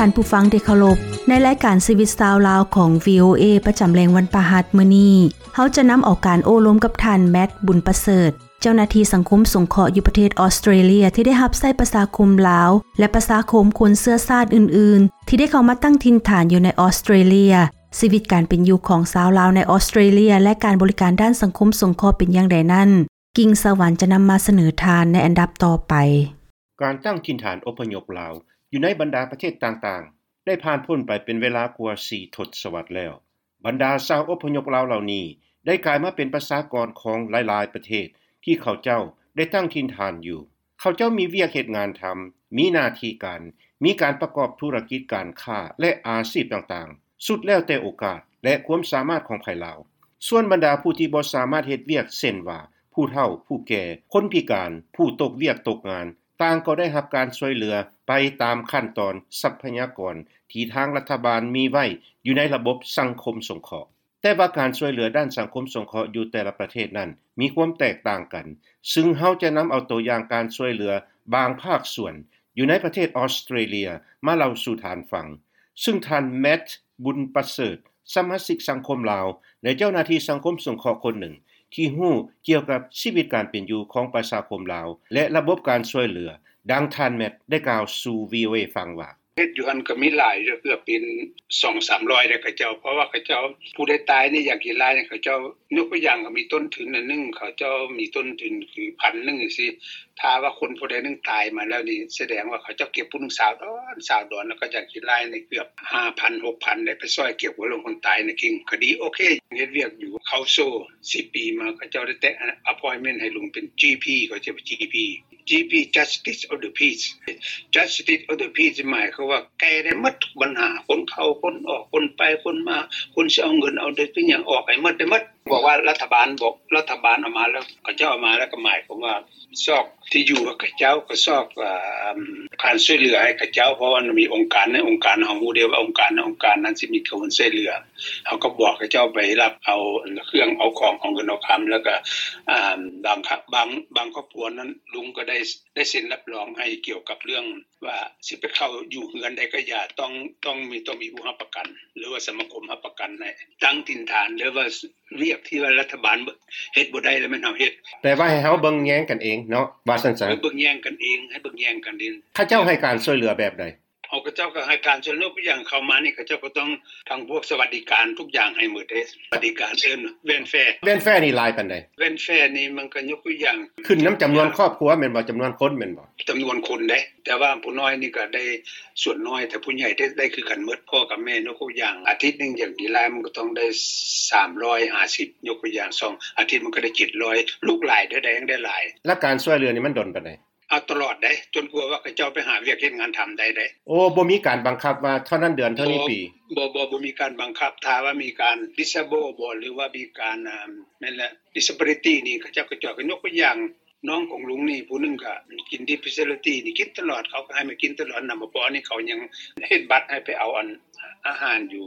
ທ່ານຜູ້ຟັງທີ່ເຄົາລົບ, ໃນລາຍການຊີວິດຊາວລາວຂອງ ວີໂອເອ ປະຈຳແລງວັນພະຫັດມື້ນີ້, ເຮົາຈະນຳເອົາການໂອ້ລົມກັບທ່ານ ແມັດ ບຸນປະເສີດ, ເຈົ້າໜ້າທີ່ສັງຄົມສົງເຄາະຢູ່ປະເທດອອສເຕຣເລຍ ທີ່ໄດ້ຮັບໃຊ້ປະຊາຄົມລາວ ແລະ ປະຊາຄົມຄົນເຊື້ອຊາດອື່ນໆ ທີ່ໄດ້ເຂົ້າມາຕັ້ງຖິ່ນຖານຢູ່ໃນອອສເຕຣເລຍ, ຊີວິດການເປັນຢູ່ຂອງຊາວລາວໃນອອສເຕຣເລຍ ແລະ ການບໍລິການດ້ານສັງຄົມສົງເຄາະເປັນຢ່າງໃດນັ້ນ, ກິ່ງສະຫວັນຈະນຳມາສະເໜີທ່ານໃນອັນດັບຕໍ່ໄປ. ການຕັ້ງຖິ່ນຖານອົບພະຍົບລາວຢູ່ໃນບັນດາປະເທດຕ່າງໆ ໄດ້ຜ່ານພົ້ນໄປເປັນເວລາກວ່າສີ່ທົດສະວັດແລ້ວ. ບັນດາຊາວອົບພະຍົບລາວເຫຼົ່ານີ້ ໄດ້ກາຍມາເປັນປະຊາກອນຂອງຫຼາຍໆປະເທດທີ່ເຂົາເຈົ້າໄດ້ຕັ້ງຖິ່ນຖານຢູ່. ເຂົາເຈົ້າມີວຽກເຮັດງານທຳ, ມີໜ້າທີ່ການ, ມີການປະກອບທຸລະກິດການຄ້າ ແລະ ອາຊີບຕ່າງໆ, ສຸດແລ້ວແຕ່ໂອກາດ ແລະ ຄວາມສາມາດຂອງໃຜລາວ. ສ່ວນບັນດາຜູ້ທີ່ບໍ່ສາມາດເຮັດວຽກ ເຊັ່ນວ່າ ຜູ້ເຖົ້າ, ຜູ້ແກ່, ຄົນພິການ, ຜູ້ຕົກວຽກຕົກງານ, ຕ່າງກໍໄດ້ຮັບການຊ່ວຍເຫຼືອໄປຕາມຂັ້ນຕອນຊັບພະຍາກອນທີ່ທາງລັດຖະບານມີໄວ້ຢູ່ໃນລະບົບສັງຄົມສົງເຄາະ. ແຕ່ວ່າການຊ່ວຍເຫຼືອດ້ານສັງຄົມສົງເຄາະຢູ່ແຕ່ລະປະເທດນັ້ນມີຄວາມແຕກຕ່າງກັນ, ຊຶ່ງເຮົາຈະນຳເອົາຕົວຢ່າງການຊ່ວຍເຫຼືອບາງພາກສ່ວນຢູ່ໃນປະເທດອອສເຕຣເລຍມາເລົ່າສູ່ທ່ານຟັງ, ຊຶ່ງທ່ານ ແມັດ ບຸນປະເສີດ, ສະມາຊິກສັງຄົມລາວ ແລະ ເຈົ້າໜ້າທີ່ສັງຄົມສົງເຄາະຄົນໜຶ່ງ ທີ່ຮູ້ກ່ຽວກັບຊີວິດການເປັນຢູ່ຂອງປະຊາຄົມລາວ ແລະ ລະບົບການຊ່ວຍເຫຼືອ, ດັ່ງທ່ານ ແມັດ ໄດ້ກ່າວສູ່ ວີໂອເອ ຟັງວ່າ: ເຮັດຢູ່ຫັ້ນກໍມີຫຼາຍຢູ່ ເກືອບເປັນສອງສາມຮ້ອຍແລ້ວເຂົາເຈົ້າ, ເພາະວ່າເຂົາເຈົ້າ ຜູ້ໃດຕາຍນີ້ ຢາກກິນຫຼາຍນີ້ ເຂົາເຈົ້າ ຍົກຕົວຢ່າງ ກໍມີຕົ້ນທຶນອັນໜຶ່ງ, ເຂົາເຈົ້າມີຕົ້ນທຶນຄືພັນໜຶ່ງຊີ້, ຖ້າວ່າຄົນຜູ້ໃດໜຶ່ງຕາຍມາແລ້ວນີ້ ສະແດງວ່າເຂົາເຈົ້າເກັບຜູ້ໜຶ່ງຊາວດອນ ຊາວດອນ, ແລ້ວກໍຢາກກິນຫຼາຍນີ້ ເກືອບຫ້າພັນ ຫົກພັນໄດ້ໄປຊ່ອຍເກັບເງິນຂອງຄົນຕາຍໃນກິ່ງ. ກໍດີ ໂອເຄ ເຮັດວຽກຢູ່ Council ສິບປີມາ ເຂົາເຈົ້າໄດ້ແຕະ appointment ໃຫ້ລຸງເປັນ GP ເຂົາເອີ້ນວ່າ GP, GP Justice of the Peace. Justice of the Peace ໝາຍຄວາມວ່າແກ້ໄດ້ໝົດທຸກບັນຫາ, ຄົນເຂົ້າຄົນອອກ, ຄົນໄປຄົນມາ, ຄົນຊິເອົາເງິນເອົາໄດ້ ເປັນຫຍັງ ອອກໃຫ້ໝົດ ໄດ້ໝົດ. ບອກວ່າລັດຖະບານ ບອກລັດຖະບານເອົາມາແລ້ວ ເຂົາເຈົ້າເອົາມາແລ້ວ ກໍໝາຍຄວາມວ່າຊອກທີ່ຢູ່ໃຫ້ເຂົາເຈົ້າ, ກໍຊອກ ອາ ການຊ່ວຍເຫຼືອໃຫ້ເຂົາເຈົ້າ, ເພາະວ່າມັນມີອົງການ ໃນອົງການ ເຮົາຮູ້ເດ້ວ່າອົງການ ໃນອົງການນັ້ນຊິມີການຊ່ວຍເຫຼືອ. ເຮົາກໍບອກເຂົາເຈົ້າໄປຮັບເອົາເຄື່ອງເອົາຂອງ ເອົາເງິນເອົາຄຳ ແລ້ວກໍ ອາ ບາງ ບາງ ບາງຄອບຄົວນັ້ນ ລຸງກໍໄດ້ ໄດ້ເຊັນຮັບຮອງໃຫ້ ກ່ຽວກັບເລື່ອງວ່າຊິໄປເຂົ້າຢູ່ເຮືອນໃດກໍຢ່າ ຕ້ອງ ຕ້ອງມີ ຕ້ອງມີຜູ້ຮັບປະກັນ ຫຼືວ່າສະມາຄົມຮັບປະກັນໃຫ້ຕັ້ງຖິ່ນຖານ ຫຼືວ່າວຽກທີ່ວ່າລັດຖະບານເຮັດບໍ່ໄດ້ ແລ້ວແມ່ນເຮົາເຮັດ. ແປວ່າໃຫ້ເຮົາເບິ່ງແຍງກັນເອງເນາະ ວ່າຊັ້ນຊະ. ໃຫ້ເບິ່ງແຍງກັນເອງ ໃຫ້ເບິ່ງແຍງກັນເອງ. ເຂົາເຈົ້າໃຫ້ການຊ່ວຍເຫຼືອແບບໃດ? ເຂົາເຈົ້າກໍໃຫ້ການຊ່ວຍເຫຼືອ ຍົກຕົວຢ່າງເຂົ້າມານີ້ ເຂົາເຈົ້າກໍຕ້ອງ ທາງພວກສະຫວັດດີການທຸກຢ່າງໃຫ້ໝົດເດ້. ສະຫວັດດີການເອີ້ນ welfare. Welfare ນີ້ຫຼາຍປານໃດ? Welfare ນີ້ມັນກໍຍົກຕົວຢ່າງ ຂຶ້ນນຳຈຳນວນຄອບຄົວແມ່ນບໍ່? ຈຳນວນຄົນແມ່ນບໍ່? ຈຳນວນຄົນເດ້, ແຕ່ວ່າຜູ້ນ້ອຍນີ້ກໍໄດ້ສ່ວນນ້ອຍ ແຕ່ຜູ້ໃຫຍ່ໄດ້ ໄດ້ຄືກັນໝົດ ພໍ່ກັບແມ່. ຍົກຕົວຢ່າງ ອາທິດໜຶ່ງ ຢ່າງດີຫຼາຍມັນກໍຕ້ອງໄດ້ສາມຮ້ອຍຫ້າສິບ, ຍົກຕົວຢ່າງ ສອງອາທິດມັນກໍໄດ້ເຈັດຮ້ອຍ, ລູກຫຼາຍເທົ່າໃດຍັງໄດ້ຫຼາຍ. ແລ້ວການຊ່ວຍເຫຼືອນີ້ມັນດົນປານໃດ? ເອົາຕະຫຼອດເດ້ ຈົນກວ່າວ່າເຂົາເຈົ້າໄປຫາວຽກເຮັດງານທຳໄດ້ເດ້. ໂອ້ ບໍ່ມີການບັງຄັບວ່າເທົ່ານັ້ນເດືອນເທົ່ານີ້ປີ? ບໍ່ ບໍ່ ບໍ່ມີການບັງຄັບ. ຖ້າວ່າມີການ disable ບໍ ຫຼືວ່າມີການ ອາ ແມ່ນແຫຼະ disability ນີ້ ເຂົາເຈົ້າກໍຈອຍກັນ. ຍົກຕົວຢ່າງ ນ້ອງຂອງລຸງນີ້ຜູ້ໜຶ່ງກໍກິນ disability ນີ້ກິນຕະຫຼອດ, ເຂົາກໍໃຫ້ມາກິນຕະຫຼອດ. ນຳມາພໍນີ້ເຂົາຍັງເຮັດບັດໃຫ້ໄປເອົາອັນ ອາຫານຢູ່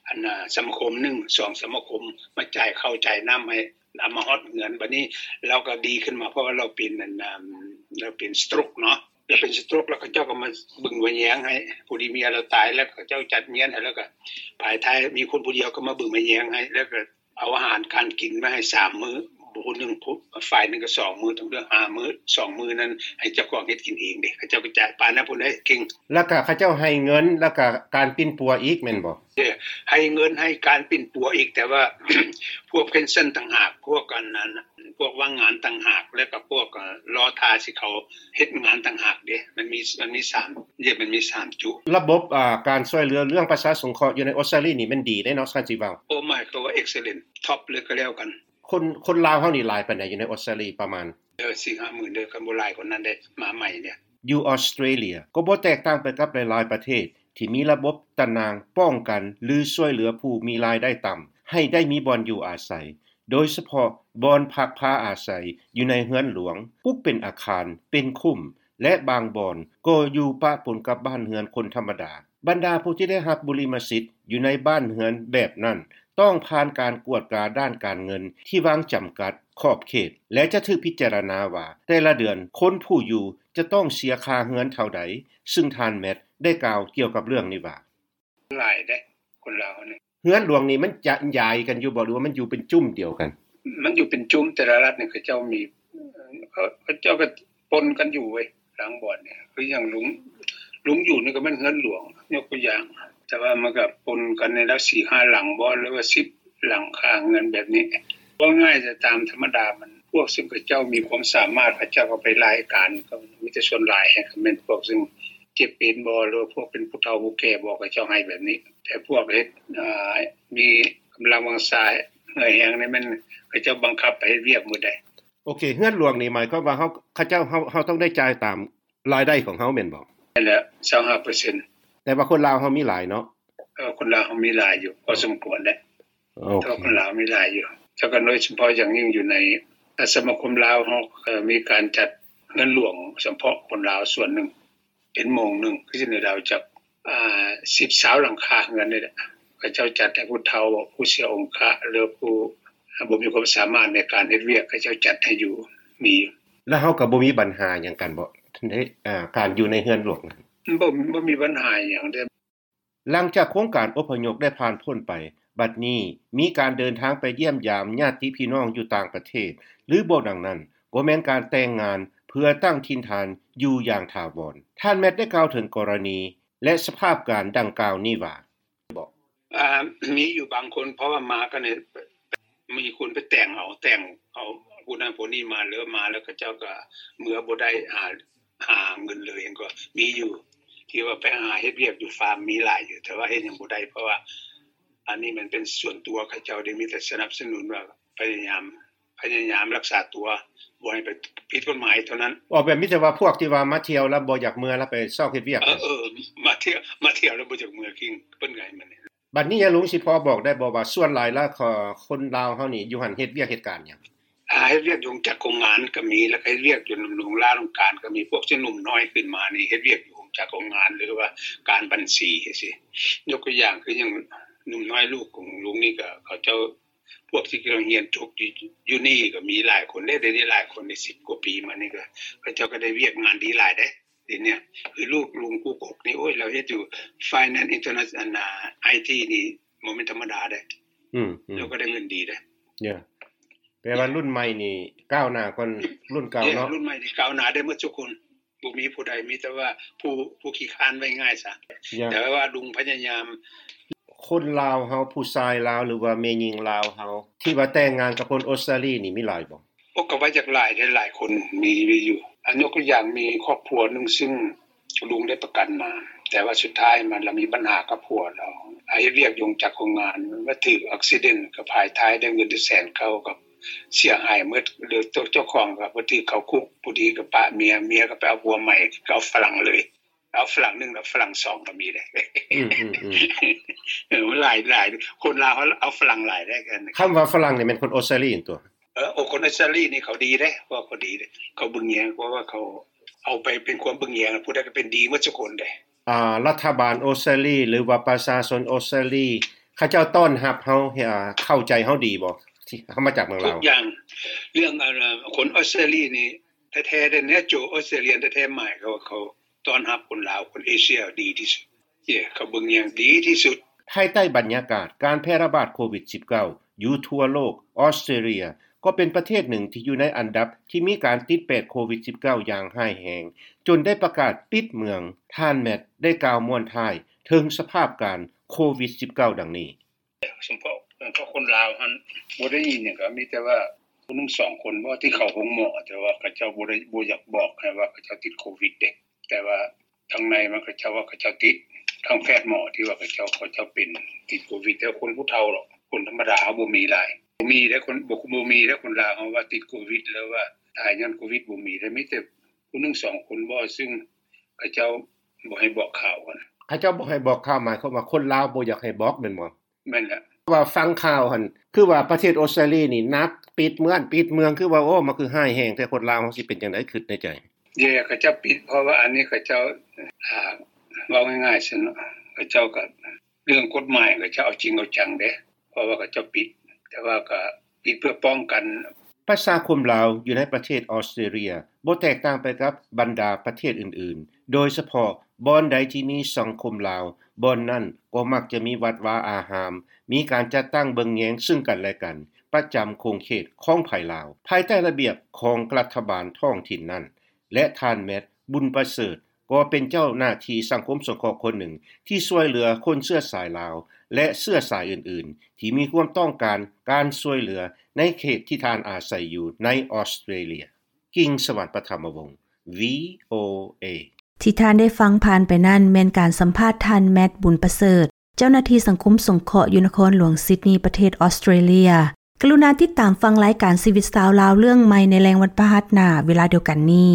ອັນ ອາ ສະມາຄົມໜຶ່ງ ສອງ ສະມາຄົມ ມາຈ່າຍເຂົ້າຈ່າຍນ້ຳໃຫ້ ເອົາມາຮອດເຮືອນ. ບັດນີ້ລາວກໍດີຂຶ້ນມາ ເພາະວ່າລາວເປັນອັນ ລາວເປັນ stroke ເນາະ, ລາວເປັນ stroke ແລ້ວເຂົາເຈົ້າກໍມາເບິ່ງມາແຍງໃຫ້. ພໍດີເມຍລາວຕາຍແລ້ວ ເຂົາເຈົ້າຈັດງານໃຫ້, ແລ້ວກໍພາຍທ້າຍມີຄົນຜູ້ດຽວກໍມາເບິ່ງມາແຍງໃຫ້, ແລ້ວກໍເອົາອາຫານການກິນມາໃຫ້ສາມມື້, ຜູ້ໜຶ່ງ ຝ່າຍໜຶ່ງກໍສອງມື້, ທັງເລື່ອງຫ້າມື້, ສອງມື້ນັ້ນໃຫ້ເຈົ້າຂອງເຮັດກິນເອງເດ້. ເຂົາເຈົ້າກໍຈະປານນັ້ນພຸ້ນເດ້ ເກັ່ງ. ແລ້ວກໍເຂົາເຈົ້າໃຫ້ເງິນ ແລ້ວກໍການປິ່ນປົວອີກແມ່ນບໍ່? ເອີ ໃຫ້ເງິນ ໃຫ້ການປິ່ນປົວອີກ, ແຕ່ວ່າ ພວກ pension ຕ່າງຫາກ, ພວກອັນນັ້ນ ພວກວ່າງງານຕ່າງຫາກ, ແລ້ວກໍພວກ ເອີ ລໍຖ້າຊິເຂົ້າເຮັດງານຕ່າງຫາກເດ້. ມັນມີ ມັນມີສາມ ເອີ ມັນມີສາມຈຸດ. ລະບົບ ອາ ການຊ່ວຍເຫຼືອເລື່ອງປະຊາສົງເຄາະຢູ່ໃນອົດສະຕາລີນີ້ແມ່ນດີເດ້ເນາະ ຄັນຊິເວົ້າ. ໂອ້ ໝາຍຄວາມວ່າ excellent, top ເລີຍກໍແລ້ວກັນ. ຄົນ ຄົນລາວເຮົານີ້ຫຼາຍປານໃດຢູ່ໃນອົດສະຕາລີປະມານ? ເອີ ສີ່ຫ້າໝື່ນເດີ, ຄັນບໍ່ຫຼາຍກວ່ານັ້ນເດ້ ມາໃໝ່ເນຍ. ຢູ່ອອສເຕຣເລຍກໍບໍ່ແຕກຕ່າງໄປກັບຫຼາຍໆປະເທດທີ່ມີລະບົບຕະໜ່າງປ້ອງກັນ ຫຼື ຊ່ວຍເຫຼືອຜູ້ມີລາຍໄດ້ຕ່ຳໃຫ້ໄດ້ມີບ່ອນຢູ່ອາໄສ, ໂດຍສະເພາະບ່ອນພັກພາອາໄສຢູ່ໃນເຮືອນຫຼວງ, ປຸກເປັນອາຄານ, ເປັນຄຸ້ມ ແລະ ບາງບ່ອນກໍຢູ່ປະປົນກັບບ້ານເຮືອນຄົນທຳມະດາ. ບັນດາຜູ້ທີ່ໄດ້ຮັບບຸລິມະສິດຢູ່ໃນບ້ານເຮືອນແບບນັ້ນ ຕ້ອງຜ່ານການກວດກາດ້ານການເງິນທີ່ວາງຈຳກັດຂອບເຂດ ແລະ ຈະຖືກພິຈາລະນາວ່າແຕ່ລະເດືອນຄົນຜູ້ຢູ່ຈະຕ້ອງເສຍຄ່າເຮືອນເທົ່າໃດ, ຊຶ່ງທ່ານ ແມັດ ໄດ້ກ່າວກ່ຽວກັບເລື່ອງນີ້ວ່າ ຫຼາຍເດ້ ຄົນລາວນີ້. ເຮືອນຫຼວງນີ້ມັນຈະຢາຍກັນຢູ່ບໍ່ ຫຼືວ່າມັນຢູ່ເປັນຈຸ້ມດຽວກັນ? ມັນຢູ່ເປັນຈຸ້ມ ແຕ່ລະລັດນີ້ເຂົາເຈົ້າມີ ເຂົາ ເຂົາເຈົ້າກໍປົນກັນຢູ່ເວີຍ ລາງບ່ອນນີ້ ຄືຢ່າງລຸງ ລຸງຢູ່ນີ້ກໍແມ່ນເຮືອນຫຼວງ ຍົກຕົວຢ່າງ ແຕ່ວ່າມັນກໍປົນກັນໃນລະສີ່ຫ້າຫຼັງບໍ ຫຼືວ່າສິບຫຼັງຄາເຮືອນແບບນີ້. ເວົ້າງ່າຍ ແຕ່ຕາມທຳມະດາມັນ ພວກເຊິ່ງເຂົາເຈົ້າມີຄວາມສາມາດ ເຂົາເຈົ້າກໍໄປລາຍການ ກໍມີແຕ່ສ່ວນຫຼາຍກໍແມ່ນພວກເຊິ່ງເຈັບເປັນບໍ ຫຼືວ່າພວກເປັນຜູ້ເຖົ້າຜູ້ແກ່ບໍ ເຂົາເຈົ້າໃຫ້ແບບນີ້. ແຕ່ພວກເຮັດ ອ່າ ມີກຳລັງວັງຊາເຫື່ອແຮງນີ້ ແມ່ນເຂົາເຈົ້າບັງຄັບໃຫ້ເຮັດວຽກໝົດໃດ໋. ໂອເຄ ເຮືອນຫຼວງນີ້ໝາຍຄວາມວ່າເຮົາ ເຂົາເຈົ້າ ເຮົາ ເຮົາຕ້ອງໄດ້ຈ່າຍຕາມລາຍໄດ້ຂອງເຮົາແມ່ນບໍ່? ແມ່ນແລ້ວ ຊາວຫ້າເປີເຊັນ. ແຕ່ວ່າຄົນລາວເຮົາມີຫຼາຍເນາະ? ເອີ ຄົນລາວເຮົາມີຫຼາຍຢູ່ ພໍສົມຄວນເດ້. ໂອເຄ ແຕ່ວ່າຄົນລາວມີຫຼາຍຢູ່ ແລ້ວກໍໂດຍສະເພາະຢ່າງຍິ່ງຢູ່ໃນ ອາ ສະມາຄົມລາວເຮົາ ເອີ ມີການຈັດເຮືອນຫຼວງສະເພາະຄົນລາວສ່ວນໜຶ່ງ ເປັນໂມງໜຶ່ງ ຄືຢູ່ໃນລາວຈັກ ອ່າ ສິບ ຊາວຫຼັງຄາເຮືອນນີ້ແຫຼະ ເຂົາເຈົ້າຈັດໃຫ້ຜູ້ເຖົ້າ ຜູ້ເສຍອົງຄະ ຫຼືຜູ້ ອ່າ ບໍ່ມີຄວາມສາມາດໃນການເຮັດວຽກ ເຂົາເຈົ້າຈັດໃຫ້ຢູ່ ມີຢູ່. ແລ້ວເຮົາກໍບໍ່ມີບັນຫາຫຍັງກັນບໍ ໃນ ອ່າ ການຢູ່ໃນເຮືອນຫຼວງ? ບໍ່ ບໍ່ມີບັນຫາຫຍັງເດ້. ຫຼັງຈາກໂຄງການອົບພະຍົບໄດ້ຜ່ານພົ້ນໄປ, ບັດນີ້ມີການເດີນທາງໄປຢ້ຽມຢາມຍາດຕິພີ່ນ້ອງຢູ່ຕ່າງປະເທດ ຫຼືບໍ່ດັ່ງນັ້ນ, ກໍແມ່ນການແຕ່ງງານເພື່ອຕັ້ງຖິ່ນຖານຢູ່ຢ່າງຖາວອນ. ທ່ານແມັດໄດ້ກ່າວເຖິງກໍລະນີ ແລະ ສະພາບການດັ່ງກ່າວນີ້ວ່າ: ອ່າ ມີຢູ່ບາງຄົນ ເພາະວ່າມາກັນນີ້ ມີຄົນໄປແຕ່ງເອົາ ແຕ່ງເອົາຜູ້ນັ້ນຜູ້ນີ້ມາ ແລ້ວມາແລ້ວເຂົາເຈົ້າກໍເມືອບໍ່ໄດ້ ຫາ ຫາເງິນເລີຍ ກໍມີຢູ່ ທີ່ວ່າໄປຫາເຮັດວຽກຢູ່ຟາມ ມີຫຼາຍຢູ່ ແຕ່ວ່າເຮັດຫຍັງບໍ່ໄດ້ ເພາະວ່າອັນນີ້ມັນເປັນສ່ວນຕົວເຂົາເຈົ້າເດ້ ມີແຕ່ສະໜັບສະໜູນວ່າພະຍາຍາມ ພະຍາຍາມລັກສາຕົວ ບໍ່ໃຫ້ໄປຜິດກົດໝາຍເທົ່ານັ້ນ. ອໍ ແບບມີແຕ່ວ່າພວກທີ່ວ່າມາທ່ຽວແລ້ວບໍ່ຢາກເມືອ ແລ້ວໄປຊອກເຮັດວຽກ. ເອີ ເອີ ມາທ່ຽວ ມາທ່ຽວແລ້ວບໍ່ຢາກເມືອກິນ ເພິ່ນກໍໃຫ້ມັນ. ບັດນີ້ຍາລຸງຊິພໍບອກໄດ້ບໍ່ວ່າ ສ່ວນຫຼາຍແລ້ວ ຄົນລາວເຮົານີ້ຢູ່ຫັ້ນເຮັດວຽກເຮັດການຫຍັງ? ອ່າ ເຮັດວຽກຢູ່ໂຮງຈັກໂຮງງານກໍມີ ແລ້ວກໍເຮັດວຽກຢູ່ນຳໂຮງລານໂຮງການກໍມີ. ພວກທີ່ໜຸ່ມນ້ອຍຂຶ້ນມານີ້ ເຮັດວຽກຢູ່ໂຮງຈັກໂຮງງານ ຫຼືວ່າການບັນຊີຈັ່ງຊີ້. ຍົກຕົວຢ່າງຄືຫຍັງ ໜຸ່ມນ້ອຍລູກຂອງລຸງນີ້ ກໍເຂົາເຈົ້າ ພວກທີ່ກຳລັງຮຽນຈົບຢູ່ ຢູ່ນີ້ກໍມີຫຼາຍຄົນເດ້. ດຽວນີ້ຫຼາຍຄົນເດ້ ສິບກວ່າປີມານີ້ ກໍເຂົາເຈົ້າກໍໄດ້ວຽກງານດີຫຼາຍເດ້. ດຽວນີ້ຄືລູກລຸງກູກົກນີ້ ໂອ້ຍ ລາວເຮັດຢູ່ Finance Interna- ອັນນ່າ ໄອທີ ນີ້ບໍ່ແມ່ນທຳມະດາເດ້. ອືມ ອືມ ລາວກໍໄດ້ເງິນດີເດ້. ແປວ່າລຸ້ນໃໝ່ນີ້ກ້າວໜ້າກ່ອນລຸ້ນເກົ່າເນາະ. ລຸ້ນໃໝ່ນີ້ກ້າວໜ້າໄດ້ໝົດທຸກຄົນ ບໍ່ມີຜູ້ໃດ ມີແຕ່ວ່າຜູ້ ຜູ້ຂີ້ຄ້ານ ເວົ້າງ່າຍຊະ. ແຕ່ວ່າລຸງພະຍາຍາມ. ຄົນລາວເຮົາ ຜູ້ຊາຍລາວ ຫຼືວ່າແມ່ຍິງລາວເຮົາ ທີ່ວ່າແຕ່ງງານກັບຄົນອົດສະຕາລີນີ້ມີຫຼາຍບໍ່? ໂອ້ ກໍວ່າຢາກຫຼາຍເດ້ ຫຼາຍຄົນ ມີ ມີຢູ່. ອາ ຍົກຕົວຢ່າງ ມີຄອບຄົວໜຶ່ງ ຊຶ່ງລຸງໄດ້ປະກັນມາ ແຕ່ວ່າສຸດທ້າຍມາລະມີບັນຫາກັບຜົວລາວ ອາ ເຮັດວຽກຢູ່ໂຮງຈັກໂຮງງານ ມາຖືກ accident ກັບພາຍທ້າຍ ໄດ້ເງິນແສນເກົ້າ ກັບເສຍຫາຍໝົດ ຫຼື ເຈົ້າ ເຈົ້າຂອງກໍໄປຖືກເຂົ້າຄຸກ. ຜູ້ດີກໍປະເມຍ ເມຍກໍໄປເອົາຜົວໃໝ່ ກໍເອົາຝຣັ່ງເລີຍ. ເອົາຝຣັ່ງໜຶ່ງ ເອົາຝຣັ່ງສອງກໍມີເດ້. ອືມ ເອີ ມັນຫຼາຍ ຫຼາຍ ຄົນລາວເຮົາເອົາຝຣັ່ງຫຼາຍເດ້. ຄຳວ່າຝຣັ່ງນີ້ແມ່ນຄົນອົດສະຕາລີຕົວະ? ເອີ ໂອ ຄົນອົດສະຕາລີນີ້ເຂົາດີເດ້ ພວກເຂົາດີເດ້ ເຂົາເບິ່ງແຍງ ເພາະວ່າເຂົາເອົາໄປເປັນຄວາມເບິ່ງແຍງ ຜູ້ໃດກໍເປັນດີໝົດທຸກຄົນເດ້. ອາ ລັດຖະບານອົດສະຕາລີ ຫຼືວ່າປະຊາຊົນອົດສະຕາລີ ເຂົາເຈົ້າຕ້ອນຮັບເຮົາ ເຂົ້າໃຈເຮົາດີບໍ່ ທີ່ເຮົາມາຈາກເມືອງລາວ? ທຸກຢ່າງ ເລື່ອງ ອາ ຄົນອົດສະຕາລີນີ້ແທ້ໆເດ້ ແນວໂຈ Australian ແທ້ໆ ໝາຍຄວາມວ່າເຂົາ ຕ້ອນຮັບຄົນລາວ ຄົນເອເຊຍດີທີ່ສຸດ ເຈົ້າ ເຂົາເບິ່ງຢ່າງດີທີ່ສຸດ. ພາຍໃຕ້ບັນຍາກາດການແຜ່ລະບາດໂຄວິດສິບເກົ້າ ຢູ່ທົ່ວໂລກ, ອອສເຕຣເລຍກໍເປັນປະເທດໜຶ່ງທີ່ຢູ່ໃນອັນດັບທີ່ມີການຕິດແປດໂຄວິດສິບເກົ້າຢ່າງຮ້າຍແຮງ, ຈົນໄດ້ປະກາດປິດເມືອງ. ທ່ານແມັດໄດ້ກ່າວມ້ວນທ້າຍເຖິງສະພາບການໂຄວິດສິບເກົ້າດັ່ງນີ້. ສະເພາະ ສະເພາະຄົນລາວຫັ້ນ ບໍ່ໄດ້ຍິນຫຍັງ ກໍມີແຕ່ວ່າຜູ້ໜຶ່ງສອງຄົນບໍ ທີ່ເຂົ້າໂຮງໝໍ ແຕ່ວ່າເຂົາເຈົ້າບໍ່ໄດ້ ບໍ່ຢາກບອກໃຫ້ວ່າເຂົາເຈົ້າຕິດໂຄວິດເດ້ ແຕ່ວ່າທາງໃນມັນ ເຂົາເຈົ້າວ່າເຂົາເຈົ້າຕິດ ທາງແພດໝໍທີ່ວ່າເຂົາເຈົ້າ ເຂົາເຈົ້າເປັນ ຕິດໂຄວິດ ແຕ່ຄົນຜູ້ເຖົ້າດອກ ຄົນທຳມະດາເຮົາບໍ່ມີຫຼາຍ ບໍ່ມີເດ້ ຄົນ ບໍ່ ບໍ່ມີເດ້ ຄົນລາວເຮົາວ່າຕິດໂຄວິດ ຫຼືວ່າຕາຍຍ້ອນໂຄວິດ ບໍ່ມີເດ້ ມີແຕ່ຜູ້ໜຶ່ງສອງຄົນບໍ ຊຶ່ງເຂົາເຈົ້າບໍ່ໃຫ້ບອກຂ່າວຫັ້ນ. ເຂົາເຈົ້າບໍ່ໃຫ້ບອກຂ່າວ ໝາຍຄວາມວ່າຄົນລາວບໍ່ຢາກໃຫ້ບອກແມ່ນບໍ່? ແມ່ນແຫຼະ ວ່າຟັງຂ່າວຫັ້ນ ຄືວ່າປະເທດອົດສະຕາລີນີ້ໜັກ ປິດເມືອງ ປິດເມືອງ ຄືວ່າ ໂອ້ ມັນຄືຮ້າຍແຮງແທ້ ຄົນລາວເຮົາຊິເປັນຈັ່ງໃດ ຄິດໃນໃຈ. ເຢ ເຂົາເຈົ້າປິດ ເພາະວ່າອັນນີ້ເຂົາເຈົ້າ ອ່າ ເວົ້າງ່າຍໆຊະເນາະ ເຂົາເຈົ້າກໍ ເລື່ອງກົດໝາຍ ເຂົາເຈົ້າເອົາຈິງເອົາຈັງເດ້ ເພາະວ່າເຂົາເຈົ້າປິດ ແຕ່ວ່າກໍປິດເພື່ອປ້ອງກັນ ປະຊາຄົມລາວຢູ່ໃນປະເທດອອສເຕຣເລັຽ ບໍ່ແຕກຕ່າງໄປກັບບັນດາປະເທດອື່ນໆ ໂດຍສະເພາະບ່ອນໃດທີ່ມີສັງຄົມລາວ ບ່ອນນັ້ນກໍມັກຈະມີວັດວາອາຮາມ, ມີການຈັດຕັ້ງເບິ່ງແຍງເຊິ່ງກັນແລະກັນ ປະຈຳຂົງເຂດຂອງໃຜລາວ ພາຍໃຕ້ລະບຽບຂອງລັດຖະບານທ້ອງຖິ່ນນັ້ນ ແລະ ທ່ານ ແມັດ ບຸນປະເສີດ ກໍເປັນເຈົ້າໜ້າທີ່ສັງຄົມສົງເຄາະຄົນໜຶ່ງ ທີ່ຊ່ວຍເຫຼືອຄົນເຊື້ອສາຍລາວ ແລະ ເຊື້ອສາຍອື່ນໆ ທີ່ມີຄວາມຕ້ອງການການຊ່ວຍເຫຼືອໃນເຂດທີ່ທ່ານອາໄສຢູ່ໃນອອສເຕຣເລັຽ. ກິງສະຫວັນ ປະຖະມະວົງ ວີໂອເອ. ທີ່ທ່ານໄດ້ຟັງຜ່ານໄປນັ້ນແມ່ນການສຳພາດທ່ານ ແມັດ ບຸນປະເສີດ ເຈົ້າໜ້າທີ່ສັງຄົມສົງເຄາະຢູ່ນະຄອນຫຼວງຊິດນີ ປະເທດອອສເຕຣເລັຽ. ກະລຸນາຕິດຕາມຟັງລາຍການຊີວິດຊາວລາວເລື່ອງໃໝ່ໃນແລງວັນພະຫັດໜ້າເວລາດຽວກັນນີ້.